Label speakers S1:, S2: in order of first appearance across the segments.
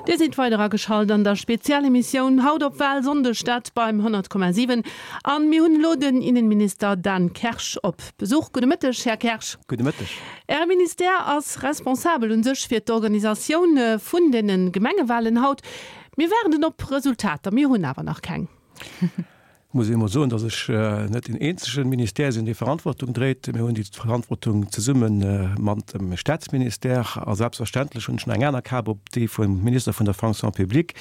S1: Dir sidd weider ageschalt an der Spezialemissioun haut op Wahlsonndeg, dat beim 100,7. An mir hunn elo den Innenminister Dan Kersch op Besuch. Gudde Mëtteg, Här Kersch.
S2: Gudde Mëtteg.
S1: Äre Ministère ass responsabel un sech fir d'Organisatioun vun den Gemengewahlen haut. Mir waarden op Resultater, mir hunn awer nach keng.
S2: Muss ee mol soen, datt ech net deen eenzege Ministère sinn, dee Verantwortung dréit. Mir hunn déi Verantwortung zesumme mat dem Staatsministère a selbstverständlech hunn ech nach eng aner Kap op, déi vum Minister vun der Fonction publique.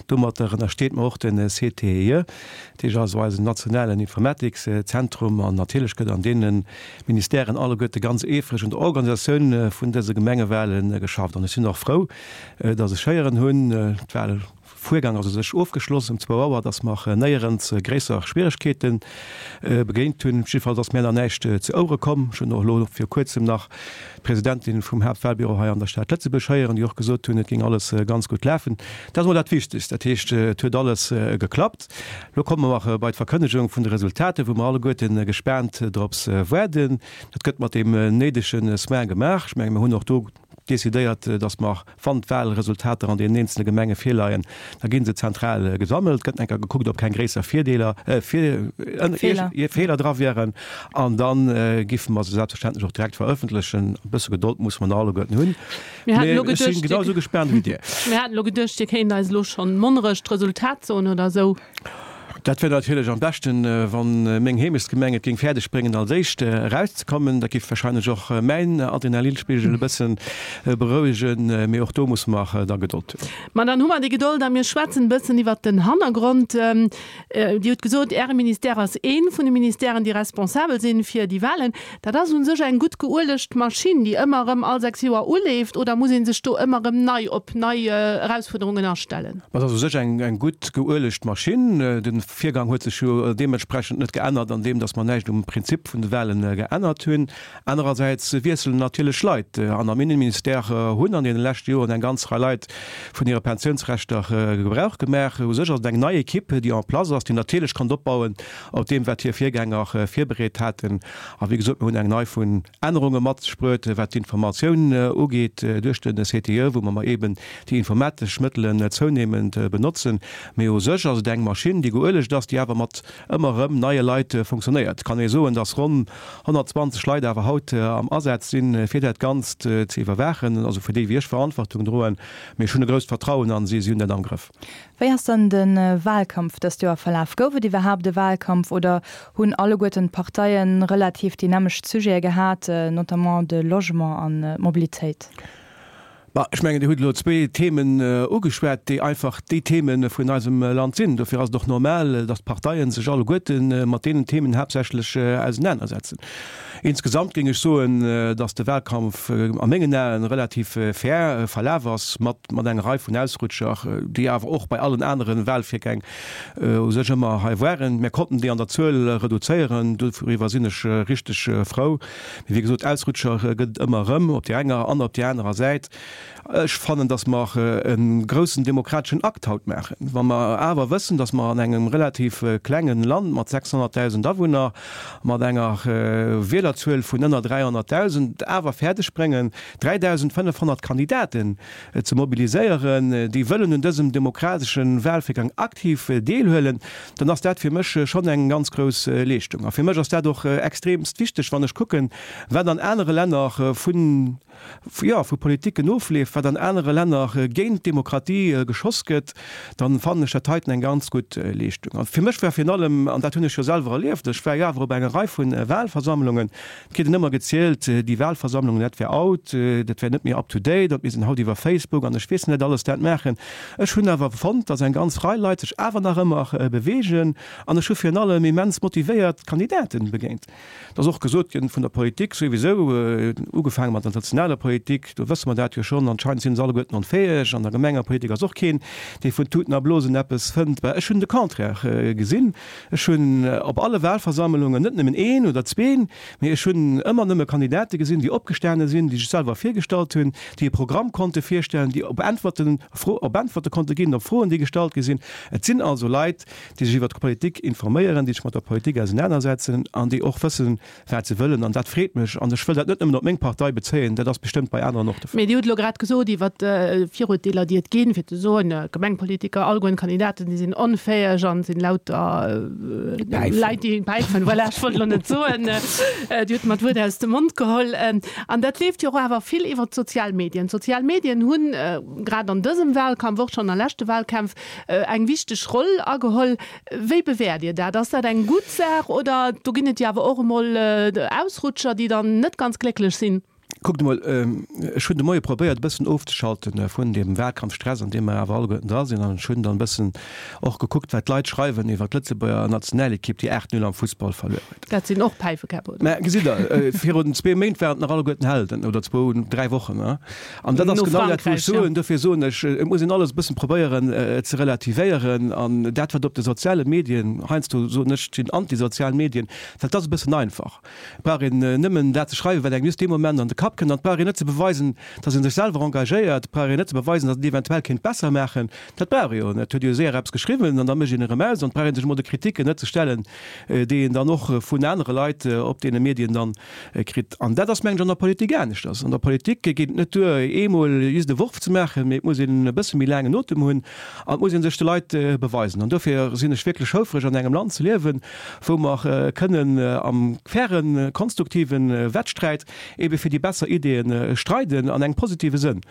S2: Domatter ënnersteet mer och de CTIE, dat heescht also eisen nationalen Informatikszentrum. An natierlech gëtt an deene Ministèren alleguerte ganz eefreg un der Organisatioun vun dëse Gemengewale geschafft. An ech sinn och frou, datt ech héieren hunn, d'Wal, Fuergang ass u sech ofgeschloss um zwou Auer, dass mer néierens gréisser Schwieregkeete begéint hunn. Jiddefalls ass mär nach näischt zu Ouere komm. Ech hunn och elo viru kuerzem nach d'Presidentin vum Haaptwahlbüro hei an der Stad Lëtzebuerg héieren, déi och gesot hunn, et géing alles ganz gutt lafen. Dat ass emol dat Wichtegst. Dat heescht, et huet alles geklappt. Elo komme mer bei d'Verkënnegung vun de Resultater, wou mer alleguerte gespaant drops waarden. Dat gëtt mat deem néidege Soin gemaach. Ech menge mir hunn och do decidéiert, datt mer, wann d'Wahlresultater an deenen eenzele Gemenge virleien, da gi se zentral gesammelt, gëtt enker gekuckt, ob keng gréisser Virdeeler, Feeler dra wieren, an da giffe mer se selbstverständlech och direkt verëffentlechen. E bësse Gedold musse mer nach alleguerten hunn,
S1: mee ech si genau esou gespaant ewéi Dir. Mir haten elo geduecht, Dir kéint eis elo schonn Monnerech d'Resultat soen oder esou.
S2: Dat wär natierlech am beschten, wann meng Heemechtsgemeng et géing fäerdeg bréngen als éischt erauszekommen. Dat géif wahrscheinlech och mäin Adrenalinspigel e bëssen berouegen. Mee och do musse mer da Gedold hunn.
S1: Ma dann hu mer déi Gedold a mir schwätzen e bëssen iwwert den Hannergrond. Dir hutt gesot, Äre Ministère ass ee vun de Ministèren, déi responsabel sinn fir déi Wahlen. Dat ass u sech eng gutt geuelegt Maschinn, déi ëmmer erëm all 6 Joer uleeft, oder muss ee sech do ëmmer erëm nei op nei Erausfuerderungen astellen?
S2: Dat ass u sech eng gutt geuelegt Maschinn. De Virgang huet sech jo deementsprechend net geännert, an deem datt mer näischt um Prinzip vun de Wahlen geännert hunn. Anerersäits wiesselen natierlech Leit. An am Innenministère hunn an deene leschte Joren eng ganz Rei Leit vun hire Pensiounsrechter Gebrauch gemaach. U sech ass et eng nei Equipe, déi en place ass, déi natierlech konnt opbauen op deem, wat hir Virgänger virbereet haten. A wéi gesot, mir hunn eng Rei vun Ännerunge mat sech bruet, wat d'Informatioun ugeet duerch de CTE, wou mer eben déi informatesch Mëttelen zounehmend benotzen. Mee u sech ass et eng Maschinn, déi geuelegt ass, déi awer mat ëmmer erëm neie Leit funktionéiert. Et kann ee soen, dass ronn 120 Leit awer haut am Asaz sinn, fir dat Ganzt ze iwwerwaachen, also fir déi wéi ech Verantwortung droen. Mee ech hunn e grousst Vertrauen a si, si hunn dat am Grëff.
S3: Wéi ass dann de Wahlkampf dëst Joer verlaf? Gouf et iwwerhaapt e Wahlkampf oder hunn alleguerten d'Parteie relativ déi nämmlecht Sujete gehat, notamment de Logement an d'Mobilitéit?
S2: Bah, ech mengen, Dir hutt elo zwee Themen ugeschwat, déi einfach déi Theme vun eisem Land sinn. Dofir ass et och normal, datt d'Parteie sech alleguerte mat deenen Themen haaptsächlech ausenanersetzen. Insgesamt géing ech soen, datt de Wahlkampf a mengen Aen relativ fair verlaf ass, mat mat enger Rei vun Ausrutscher, déi awer och bei allen anere Wahlvirgäng u sech ëmmer hei waren. Mir konnten déi an der Zuel reduzéieren, doriwwer sinn ech richteg frou. Mee wéi gesot, Ausrutscher gëtt et ëmmer erëm, op där enger an op där anerer Säit. Ech fannen, datt mer e groussen demokrateschen Akt haut maachen, wa mer awer wëssen, datt mer an engem relativ klenge Land mat 600.000 Awunner, mat enger Wielerzuel vun ënner 300.000 awer fäerdeg bréngen, 3.500 Kandidaten ze mobiliséieren, déi wëllen un dësem demokratesche Wahlvirgang aktiv deelhuelen, dann ass dat fir mech schonn eng ganz grouss Leeschtung. A fir mech ass dat och extremst wichteg, wann ech kucken, wat an anere Länner vun, jo, vu Politiken ofleeft, wat an anere Länner géint d'Demokratie geschoss gëtt, dann fannen ech dat heiten eng ganz gutt Leeschtung. A fir mech war virun allem, an dat hunn ech jo selwer erlieft, ech war jo awer op enger Rei vu Wahlversammlungen, Et kritt een ëmmer gezielt, déi Wahlversammlungen, dat wär out, dat wär net méi up to date, an mir sinn haut iwwer Facebook an ech weess net alles dat maachen. Ech hunn awer fonnt, datt eng ganz Rei Leit sech awer nach ëmmer beweegen an ech hu virun allem immens motivéiert Kandidaten begéint. Et ass och gesot ginn vun der Politik souwisou, ugefaange mat der nationaler Politik, do wësse mer dat jo schonn, anscheinend sinn se alleguerten onfäeg, an der Gemengepolitik ass och keen, dee vun Tuten a Blosen eppes fënnt. Ech hunn de Contraire gesinn. Ech hunn op alle Wahlversammlungen net nëmmen een oder zween, mee ech hunn ëmmer nëmme Kandidate gesinn, déi opgestane sinn, déi sech selwer virgestallt hunn, déi e Programm konnte virstellen, déi op Äntwerten, op Äntwerte konnte ginn op Froen, déi gestallt gi sinn. Et sinn also Leit, déi sech iwwert d'Politik informéieren, déi sech mat der Politik ausenanersetzen an déi och wëssen, wat se wëllen. An dat freet mech. An ech wëll dat net nëmmen op meng Partei bezéien, dat ass bestëmmt bei aneren och de Fall.
S1: Mee Dir hutt elo grad. grad gesot iwwer d'Virurteeler, déi et ginn, fir ze soen, Gemengpolitiker, allegueren d'Kandidaten, déi sinn onfäeg an sinn lauter Leit, déi päifen. Voilà, ech wollt elo net soen, Dir hutt mer d'Wuert aus dem Mond geholl. An dat leeft jo och awer vill iwwer d'sozial Medien. D'sozial Medien hunn grad an dësem Wahlkampf, och schonn a leschte Wahlkämpf, eng wichteg Roll ageholl. Wéi bewäert Dir dat? Ass dat eng gutt Saach oder do ginn et jo awer och emol Ausrutscher, déi dann net ganz glécklech sinn?
S2: Kuckt emol, ech hunn de Moie probéiert e bëssen ofzeschalten vun deem Wahlkampfstress, an deem mer awer alleguerten dra sinn. An ech hunn dann e bëssen och gekuckt, wat d'Leit schreiwen iwwer d'Lëtzebuerger Nationalekipp, déi 8, 0 am Fussball verluer huet.
S1: Dat sinn och Päifekäpp, oder?
S2: Mä gesitt Der, virun zwee Méint waren et nach alleguerten Helden, oder zwou, dräi Wochen. An dat ass genau dat, wou ech soen, dofir soen ech, et muss een alles e bëssen probéieren ze relativéieren. An dat, wat op de soziale Medien, heiansdo soen ech, et sinn antisozial Medien, well et ass e bëssen einfach. Et brauch een nëmmen dat ze schreiwen, wat engem just dee Moment an de Kapp kënnt. An et brauch een net ze beweisen, datt ee sech selwer engagéiert. Et brauch een net ze beweisen, datt een et eventuell kéint besser maachen. Dat brauch ee jo net. Et huet ee jo séier eppes geschriwwen an da mécht een erëm aus. An et brauch ee sech emol de Kritiken net ze stellen, déi een dann och vun anere Leit op deene Medien dann kritt. An dat ass, mengen ech, an der Politik aneschters. An der Politik geet et net duer, eemol just e Worf ze maachen, mee et muss een e bësse méi laangen Otem hunn an et muss ee sech de Leit beweisen. An dofir sinn ech wierklech houfreg, an engem Land ze liewen, wou mer kënnen am fairen, konstruktive Wettsträit ebe fir déi besser Ideeë streiden, an engem positive Sënn.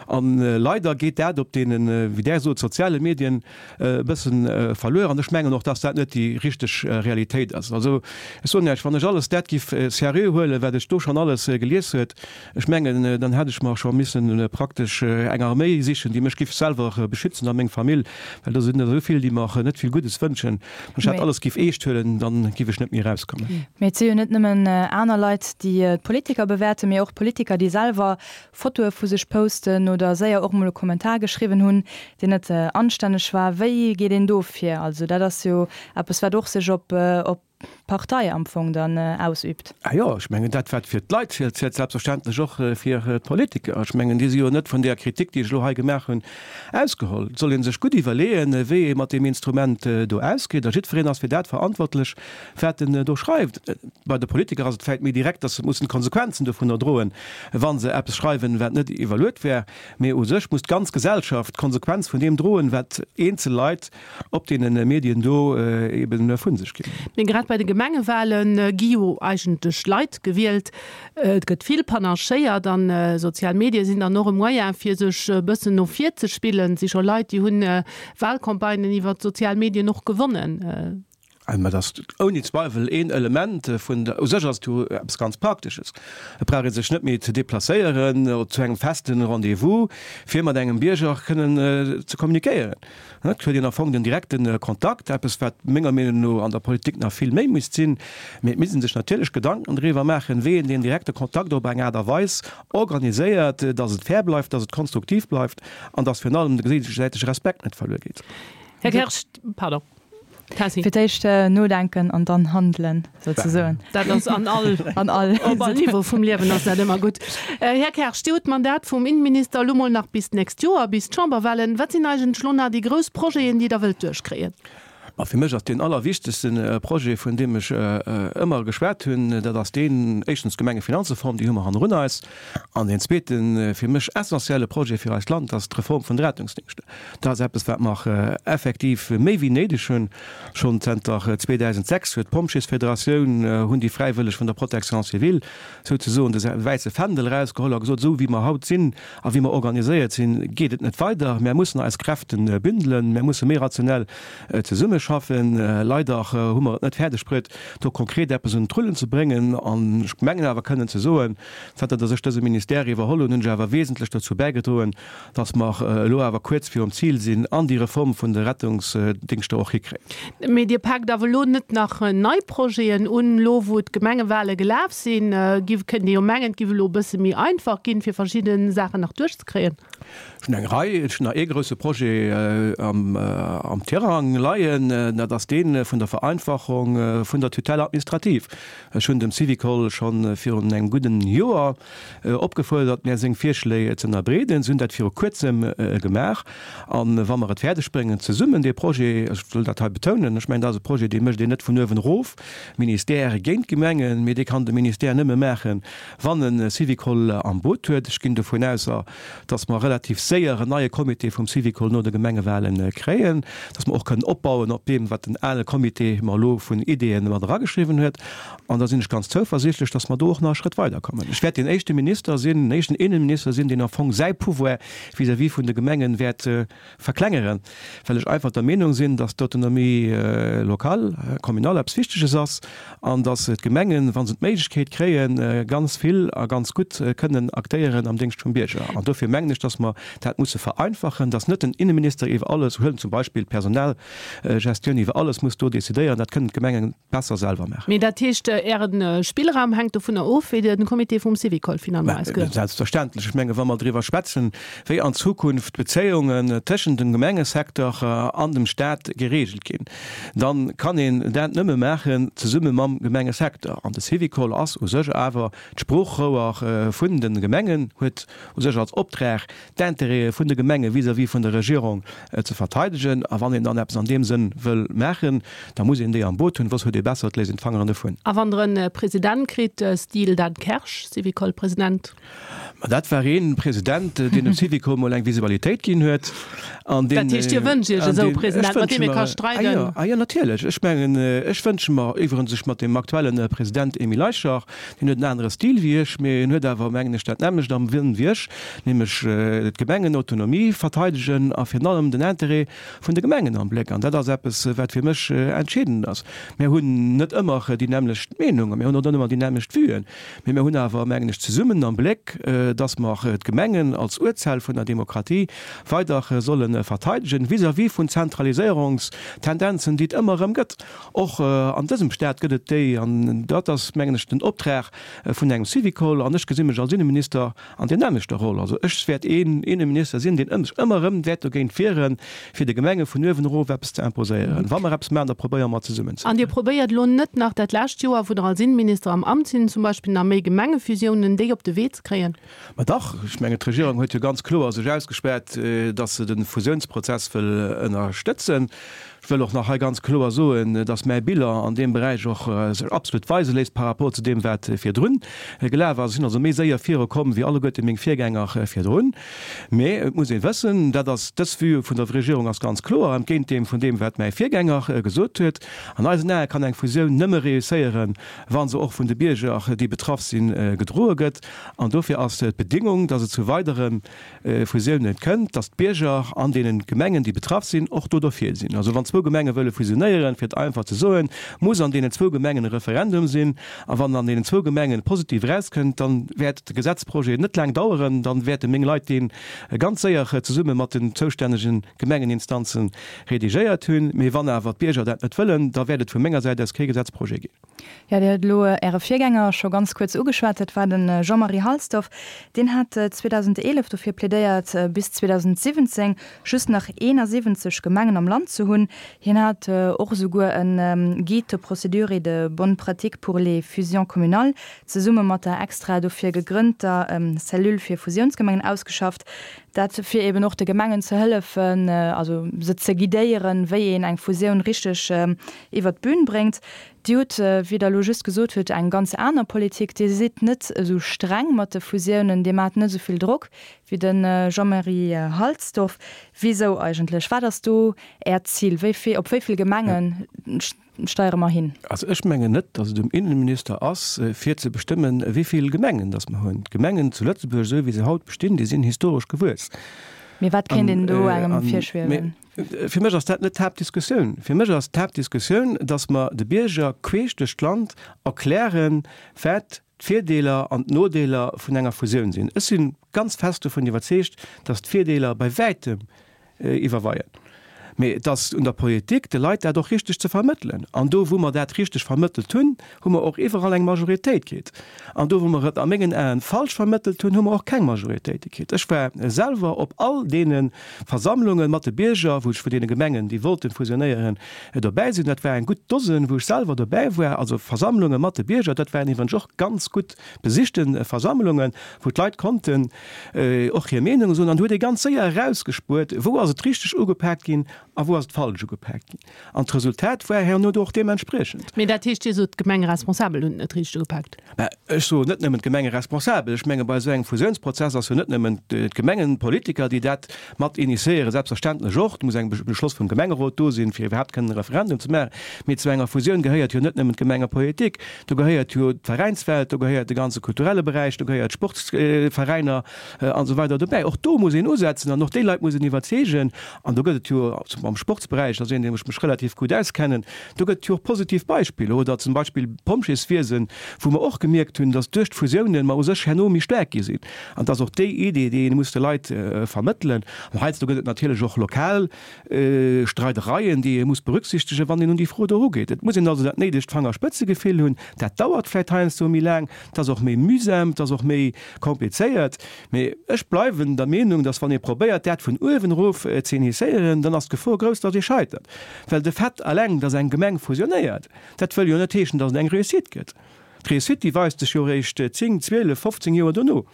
S2: A leider geet dat op deenen, wéi Der sot, soziale Medien e bësse verluer. An ech mengen och, dass dat net déi richteg Realitéit ass. Also ech soen Iech, wann ech alles dat giff seriö huelen, wat ech do schonn alles gelies huet, Ech mengen, dann hätt ech mer scho missen praktesch eng Arméi sichen, déi mech giff selwer beschützen a meng Famill, well do sinn der esou vill, déi mer net vill Guddes wënschen. Wann ech dat alles giff eescht huelen, dann giff ech net méi erauskommen.
S3: Mee et si jo net nëmmen aner Leit, déi d'Politiker bewäerten, mee och Politiker, déi selwer Fotoe vu sech posten oder séier och mol e Kommentar geschriwwen hunn, deen net anstänneg war. Wéi geet een do vir? Also dat ass jo eppes, wat och sech op Partei am Fong dann ausübt.
S2: Ah jo, ech mengen, dat wat fir d'Leit zielt, zielt selbstverständlech och fir d'Politiker. Ech mengen, déi si jo net vun där Kritik, déi ech elo hei gemaach hunn, ausgeholl. Et soll ee sech gutt iwwerleeën, wéi ee mat deem Instrument do ausgeet. A jiddwereen ass fir dat verantwortlech, wat en do schreift. Bei de Politiker ass et vläicht méi direkt, datt se mussen d'Konsequenzen dovunner droen, wa se eppes schreiwen, wat net iwwerluet wär. Mee u sech muss d'ganz Gesellschaft d'Konsequenz vun deem droen, wat eenzel Leit op deene Medien do eben vu sech ginn.
S1: Mee grad bei de Gemengewale gi jo eigentlech Leit gewielt. Et gëtt vill panachéiert an sozial Medie sinn dann och e Moyen, fir sech e bëssen no vir ze spillen. Et si scho Leit, déi hunn Walcampagnen iwwer d'sozial Medien och gewonnen.
S2: Mä dat ass ouni Zweiwel een Element vun der, u sech ass et jo eppes ganz Praktesches. Et brauch ee sech net méi ze deplacéieren zu engem feste Rendez-vous, fir mat engem Bierger kënnen ze kommunikéieren. Et huet een am Fong den direkte Kontakt, eppes wat menger Meenung no an der Politik nach vill méi misst sinn. Mee et misst ee sech natierlech Gedanken driwwer maachen, wéi een deen direkte Kontakt op eng Aart a Weis organiséiert, datt et fair bleift, datt et konstruktiv bleift an datt virun allem de géigesäitege Respekt net verluer geet.
S1: Här Kersch, pardon.
S3: Tessy. Fir d'éischt nodenken an dann handelen, souzesoen.
S1: Dat ass an all, an all, op all Niveau vum Liewen ass dat ëmmer gutt. Här Kersch, Dir hutt d'Mandat vum Innenminister elo mol nach bis d'nächst Joer, bis d'Chamberwahlen. Wat sinn eigentlech elo nach déi grouss Projeten, déi Der wëllt duerchkréien?
S2: Ma fir mech ass deen allerwichtegste Projet, vun deem ech ëmmer geschwat hunn, dat ass deen, éischtens d'Gemengefinanzreform, déi hu mer hannerun eis. An deen zweeten, fir mech essentielle Projet fir eist Land ass d'Reform vun de Rettungsdingschter. Dat ass eppes, wat mer effektiv méi wéi néideg hunn. Schonn zënter 2006 huet d'Pompjeesfederatioun, hunn déi Fräiwëlleg vun der Protection civile souzesoen de wäisse Fändel erausgeholl a gesot, esou wéi mer haut sinn a wéi mer organiséiert sinn, geet et net weider. Mär mussen eis Kräfte bündelen, mär musse méi rationell zesummeschaffen. Leider hu mer et net fäerdeg bruet, do konkret eppes un d'Rullen ze bréngen. An ech mengen awer kënnen ze soen, Zanter datt ech dëse Ministère iwwerholl hunn, hunn ech awer wesentlech dozou bäigedroen, datt mer elo awer kuerz virum Zil sinn an déi Reform vun de Rettungsdingschter och hikréien.
S1: Mee Dir paakt awer elo net nach nei Projeten un, elo wou d'Gemengewale gelaf sinn? Giff, kënnt ee jo mengen, et giff elo e bësse méi einfach ginn, fir verschidde Saachen nach duerchzekréien.
S2: Ech hunn eng Rei, ech hunn nach ee grousse Projet am Tirang leien. dat ass dee vun der Vereinfachung vun der Tutelle administrative. Ech hunn dem Syvicol scho virun engem gudden Joer opgefuerdert, mär seng Virschléi ze ënnerbreeden. Se hunn dat viru Kuerzem gemaach. A wa mer et fäerdeg bréngen, zesummen dee Projet, ech wëll dat hei betounen, ech mengen, dat ass e Projet, dee mécht een net vun uewen erof, Ministère géint d'Gemengen, mee dee kann de Ministère nëmme maachen, wann e Syvicol am Boot huet. Ech ginn dovun aus, dass mer relativ séier en neie Comité vum Syvicol no de Gemengewahlen kréien, dass mer och kënnen opbauen op deem, wat den ale Comité mer elo vun Ideeën mat erageschriwwen huet. An da sinn ech ganz zouversiichtlech, dass mer do och nach e Schrëtt weiderkommen. Ech wäert deen éischte Minister sinn, den éischten Innenminister sinn, deen am Fong säi Pouvoir vis-à-vis vun de Gemengen wäert verklengeren, well ech einfach der Meenung sinn, dass d'Autonomie locale, communale eppes Wichteges ass an dass d'Gemengen, wa se d'Méiglechkeet kréien, ganz vill a ganz gutt kënnen aktéieren am Déngscht vum Bierger. An dofir mengen ech, dass mer dat musse vereinfachen, dass net den Innenminister iwwer alles, huelen zum Beispill d'Personalgestioun, iwwer alles muss do decidéieren. Dat kënnen d'Gemengen besser selwer maachen.
S1: Mee dat heescht, Äre Spillraum hänkt dovunner of, wéi de Comité vum Syvicol finalement ausgeet?
S2: Selbstverständlech. Ech menge wa mer driwwer schwätzen, wéi an Zukunft d'Bezéiungen tëschent dem Gemengesecteur an dem Staat geregelt ginn, da kann een dat nëmme maachen zesumme mam Gemengesecteur. An de Syvicol ass u sech awer d'Sproochrouer vun de Gemengen, huet u sech als Optrag, d'Intérêtë vun de Gemenge vis-à-vis vun der Regierung ze verteidegen. A wann een dann eppes an deem Sënn wëll maachen, da muss een déi am Boot hunn, soss huet ee besser, et léisst een d'Fangeren dovun.
S1: A wann Der e President kritt, Stil Dan Kersch, Syvicol-President?
S2: Ma dat war ee President, deen dem Syvicol mol eng Visibilitéit ginn huet.
S1: An deen, Dat heescht, Dir wënscht Iech esou e President, mat deem ee ka streiden?
S2: Ah jo, ah jo, natierlech. Ech mengen, ech wënsche mer iwwerens sech mat deem aktuelle President Emile Eicher, Hien huet en anere Stil wéi ech, mee en huet awer, mengen ech, dat nämmlecht am Wëllen wéi ech, nämlech d'Gemengenautonomie verteidegen a virun allem den Intérêt vun de Gemengen am Bléck. An dat ass eppes, wat fir mech entscheedend ass. Mir hunn net ëmmer déi nämmlecht Meenung a mir hunn och net ëmmer déi nämmlecht Vuen, mee mir hunn awer, mengen ech, zesummen am Bléck, dass mer d'Gemengen als Urzell vun der Demokratie weider solle verteidegen vis-à-vis vun Zentraliséierungstendenzen, déi et ëmmer erëm gëtt. Och an dësem Staat gëtt et déi, an dat ass, mengen ech, den Optrag vun engem Syvicol, an ech gesi mech als Inneminister an där nämmlechter Roll. Also ech wäert een Inneminister sinn, deen sech ëmmer erëm wäert dogéint wieren, fir de Gemenge vun uewen erof eppes ze imposéieren. Wa mer eppes maachen, da probéiere mer zesummen
S1: ze. An Dir probéiert elo net nach dat lescht Joer, wou Der als Inneminister am Amt sinn, zum Beispill nach méi Gemengefusiounen, déi op de Wee ze kréien?
S2: Ma dach, ech mengen, d'Regierung huet jo ganz kloer sech ausgespaart, datt se de Fusiounsprozess wëll ënnerstëtzen. Ech wëll och nach hei ganz kloer soen, dass mäi Bilan an deem Beräich och sech absolut weise léisst par rapport zu deem, wat virdrun gelaf ass. Ech sinn also méi séier virukomm wéi alleguerte meng Virgänger virdrun. Mä et muss ee wëssen, dat ass, dës Vue vun der Regierung ass ganz kloer, entgéint deem vun deem, wat mäi Virgänger gesot huet, An eisen Ae kann eng Fusioun nëmme reusséieren, wa se och vun de Bierger, déi betraff sinn, gedroe gëtt. An dofir ass d'Bedingung, dass et zu weidere Fusiounen kënnt, dass d'Bierger an deene Gemengen, déi betraff sinn, och do derfir sinn. Also wann zwou Gemenge wëlle fusionéieren, fir et einfach ze soen, muss an deenen zwou Gemengen e Referendum sinn. A wann an deenen zwou Gemengen positiv erauskënnt, dann wäert de Gesetzprojet net laang daueren, dann wäerte meng Leit dee ganz séier zesumme mat den zoustännege Gemengeninstanze redigéiert hunn. Mee wann awer d'Bierger dat net wëllen, da wäert et vu menger Säit aus kee Gesetzprojet ginn.
S3: Jo, Dir hutt elo Äre Virgänger scho ganz kuerz ugeschwat, dat war de Jean-Marie Halsdorf. Deen hat 2011 dofir plädéiert, bis 2017 just nach 71 Gemengen am Land ze hunn. Hien hat och esouguer e Guide de procédure et de bonnes pratiques pour les fusions communales zesumme mat der extra dofir gegrënnter Cellule fir Fusiounsgemengen ausgeschafft. Dat fir eben och de Gemengen ze hëllefen, also se ze guidéieren, wéi een eng Fusioun richteg iwwert d'Bün bréngt. Dir hutt, wéi Der elo just gesot hutt, eng ganz aner Politik. Dir sidd net esou streng mat de Fusiounen, Dir maacht net esou vill Drock wéi de Jean-Marie Halsdorf. Wisou eigentlech? Wat ass do Äert Zil? Wéi vill, op wéi vill Gemenge steiere mer hin?
S2: Also ech mengen net, datt et um Innenminister ass, fir ze bestëmmen, wéi vill Gemengen datt mer hunn. D'Gemengen zu Lëtzebuerg, esou wéi se haut bestinn, déi sinn historesch gewuess.
S3: Mee wat kéint een do engem virschwiewen?
S2: Fir mech ass dat net d'Haaptdiskussioun. Fir mech ass d'Haaptdiskussioun, datt mer de Bierger queesch duerch d'Land erklären, wat d'Virdeeler an d'Nodeeler vun enger Fusioun sinn. Ech si ganz fest dovun iwwerzeegt, datt d'Virdeeler bei wäitem iwwerweien. Mee et ass un der Politik, de Leit dat och richteg ze vermëttelen. An do, wou mer dat richteg vermëttelt hunn, hu mer och iwwerall eng Majoritéit kritt. An do, wou mer et a mengen Aen falsch vermëttelt hunn, hu mer och keng Majoritéite kritt. Ech war selwer op all deene Versammlunge mat de Bierger, wou ech vun deene Gemengen, déi wollten fusionéieren, dobäi sinn. Dat war eng gutt Dosen, wou ech selwer dobäi war. Also Versammlunge mat de Bierger, dat waren iwwregens och ganz gutt besichte Versammlungen, wou d'Leit konnten och hir Meenung soen. An do huet ee ganz séier erausgespuert, wou ass et richteg ugepaakt ginn a wou ass et falsch ugepaakt ginn. An d'Resultat war herno do och deementspriechend.
S1: Mee dat heescht, Dir sot, d'Gemengeresponsabel hunn et net richteg ugepaakt?
S2: Mä ech soen net nëmmen d'Gemengeresponsabel. Ech menge bei esou engem Fusiounsprozess ass jo net nëmmen d'Gemengenpolitiker, déi dat mat initiéieren, selbstverständlech och, et muss eng Beschloss vum Gemengerot do sinn, fir iwwerhaapt kënnen e Referendum ze maachen. Mee zu enger Fusioun gehéiert jo net nëmmen d'Gemengepolitik, do gehéiert jo d'Veräinswelt, do gehéiert de ganze kulturelle Beräich, do gehéiert d'Sportsveräiner an esou weider dobäi. Och do muss een usetzen an och déi Leit muss een iwwerzeegen. An do gëtt et jo am Sportsberäich, dat ass een, dee ech mech relativ gutt auskennen, do gëtt et jo och positiv Beispiller. Oder zum Beispill d'Pompjeeswiesen, wou mer och gemierkt hunn, datt duerch d'Fusiounen mer u sech herno méi staark gi sinn. An et ass och déi Idee, déi ee muss de Leit vermëttelen. An heiansdo gëtt et natierlech och lokal Streidereien, déi ee muss berücksichtegen, wann een un déi Fro do erugeet. Et muss een also dat néidegt Fangerspëtzegefill hunn. Dat dauert vläicht heiansdo méi laang, et ass och méi mühsam, et ass och méi komplizéiert. Mee ech bleiwen der Meenung, dass wann ee probéiert, dat vun uewen erof ze initiéieren, dann ass d'Gefor grouss, dass ee scheitert. Well de Fait alleng, dass eng Gemeng fusionéiert, dat wëll jo net heeschen, dass et eng Réussite gëtt. D'Réussite, déi weist sech jo eréischt 10, 12, 15 Joer dono.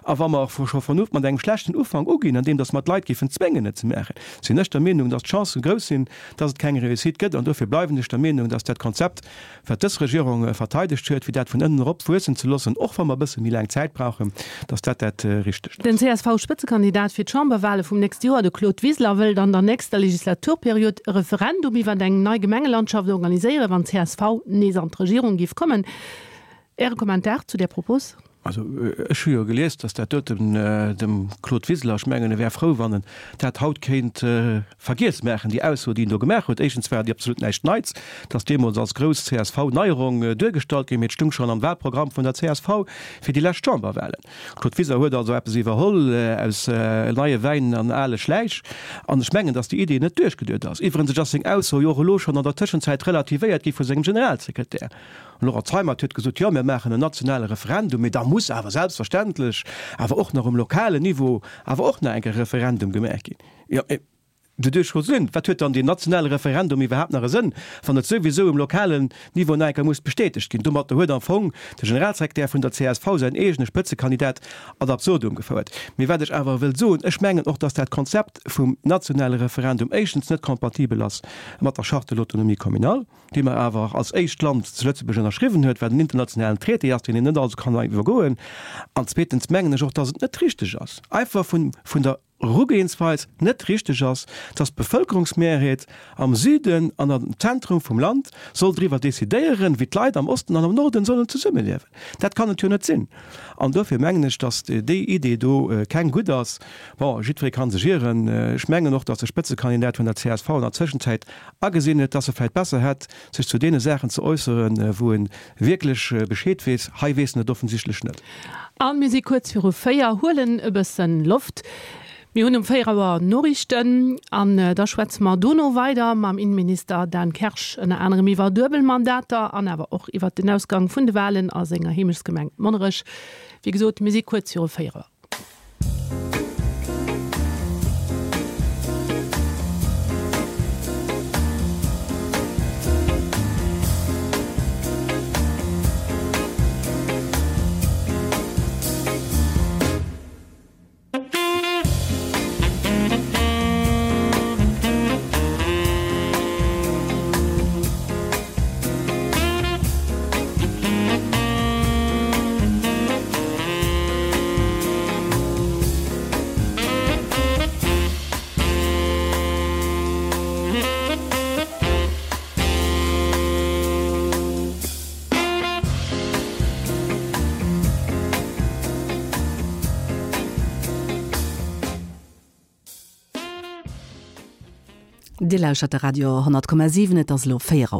S2: A wa mer scho von mat engem schlechten Ufank uginn, andeem dass mer d'Leit géifen zwéngen, et ze maachen, sinn ech der Meenung, dass d'Chancë grouss sinn, dass et keng Réussite gëtt. An dofir bleiwen ech der Meenung, dass dat Konzept, wat dës Regierung verteidegt huet, fir dat vun ënnen erop wuessen ze loossen, och wa mer e bësse méi laang Zäit brauchen, dass dat dat Richtegt ass.
S1: Den CSV-Spëtzekandidat fir d'Chamberwale vum nächste Joer, de Claude Wiseler, wëllt an der nächster Legislaturperiod e Referendum iwwer eng nei Gemengelandschaft organiséieren, wann csv nees an d'Regierung géif kommen. Äre Kommentar zu där Propos?
S2: Also ech hu jo gelies, datt dat doten dem Claude Wiseler, ech mengen e wär frou, wann en dat haut kéint vergiess maachen, déi Ausso, déi en do gemaach huet. Éischtens war déi absolut näischt Neits, et ass deemools als grouss CSV-Neierung duergestallt ginn, mee et stung schonn am Wahlprogramm vun der csv fir déi lescht Chamberwahlen. Claude Wiseler huet also eppes iwwerholl aus neie Wäin an ale Schläich. An ech mengen, datt déi Idee net duerchgeduet ass. Iwwerens ass seng Ausso jo och elo schonn an der Tëschenzäit relativéiert gi vu sengem Generalsekretär. Den Laurent Zeimet huet gesot, jo, mir maachen en nationale Referendum, mee da muss awer selbstverständlech awer och nach um lokalen Niveau awer och nach eng Kéier e Referendum gemaach ginn. Jo, mee doduerch scho sinn, wat huet dann deen nationale Referendum iwwerhaapt nach e Sënn, wann et souwisou um lokalen Niveau nach eng Kéier muss bestätegt ginn? Domatter huet am Fong de Generalsekretär vun der csv säin eegene Spëtzekandidat ad absurdum gefouert. Mee wat ech awer wëll soen, ech mengen och, datt dat Konzept vum nationale Referendum éischtens net kompatibel ass mat der Charte de l'autonomie communale, déi mer awer als éischt Land zu Lëtzebuerg ënnerschriwwen huet, wat en internationalen Traité ass, deen een net also kann iwwergoen. An zweetens mengen ech och, dass et net richteg ass, einfach vun, vun der Erugehensweis net richteg ass, dass d'Bevölkerungsmehrheet am Süden an am Zentrum vum Land soll driwwer decidéieren, wéi d'Leit am Osten an am Norden sollen zesummeliewen. Dat kann et jo net sinn. An dofir mengen ech, dass déi Idee do keng gutt ass. Bon, jiddweree ka sech ieren. Ech mengen och, dass de Spëtzekandidat vun der csv an der Zwischenzäit agesinn huet, dass e vläicht besser hätt, sech zu deene Saachen ze äusseren, wou e wierklech Bescheed weess. Hei weess en et offensichtlech net.
S1: A mir si kuerz viru 4, huelen e bëssen Loft. Mir hunn um 4 Auer Noriichten an da schwätze mer dono weider mam Innenminister Dan Kersch, ënner anerem iwwer Duebelmandater an awer och iwwer den Ausgang vun de Walen a senger Heemechtsgemeng Monnerech. Wéi gesot, mir si kuerz viru 4 Auer. Dir lauschert de Radio 10,7, et ass elo 4 Auer.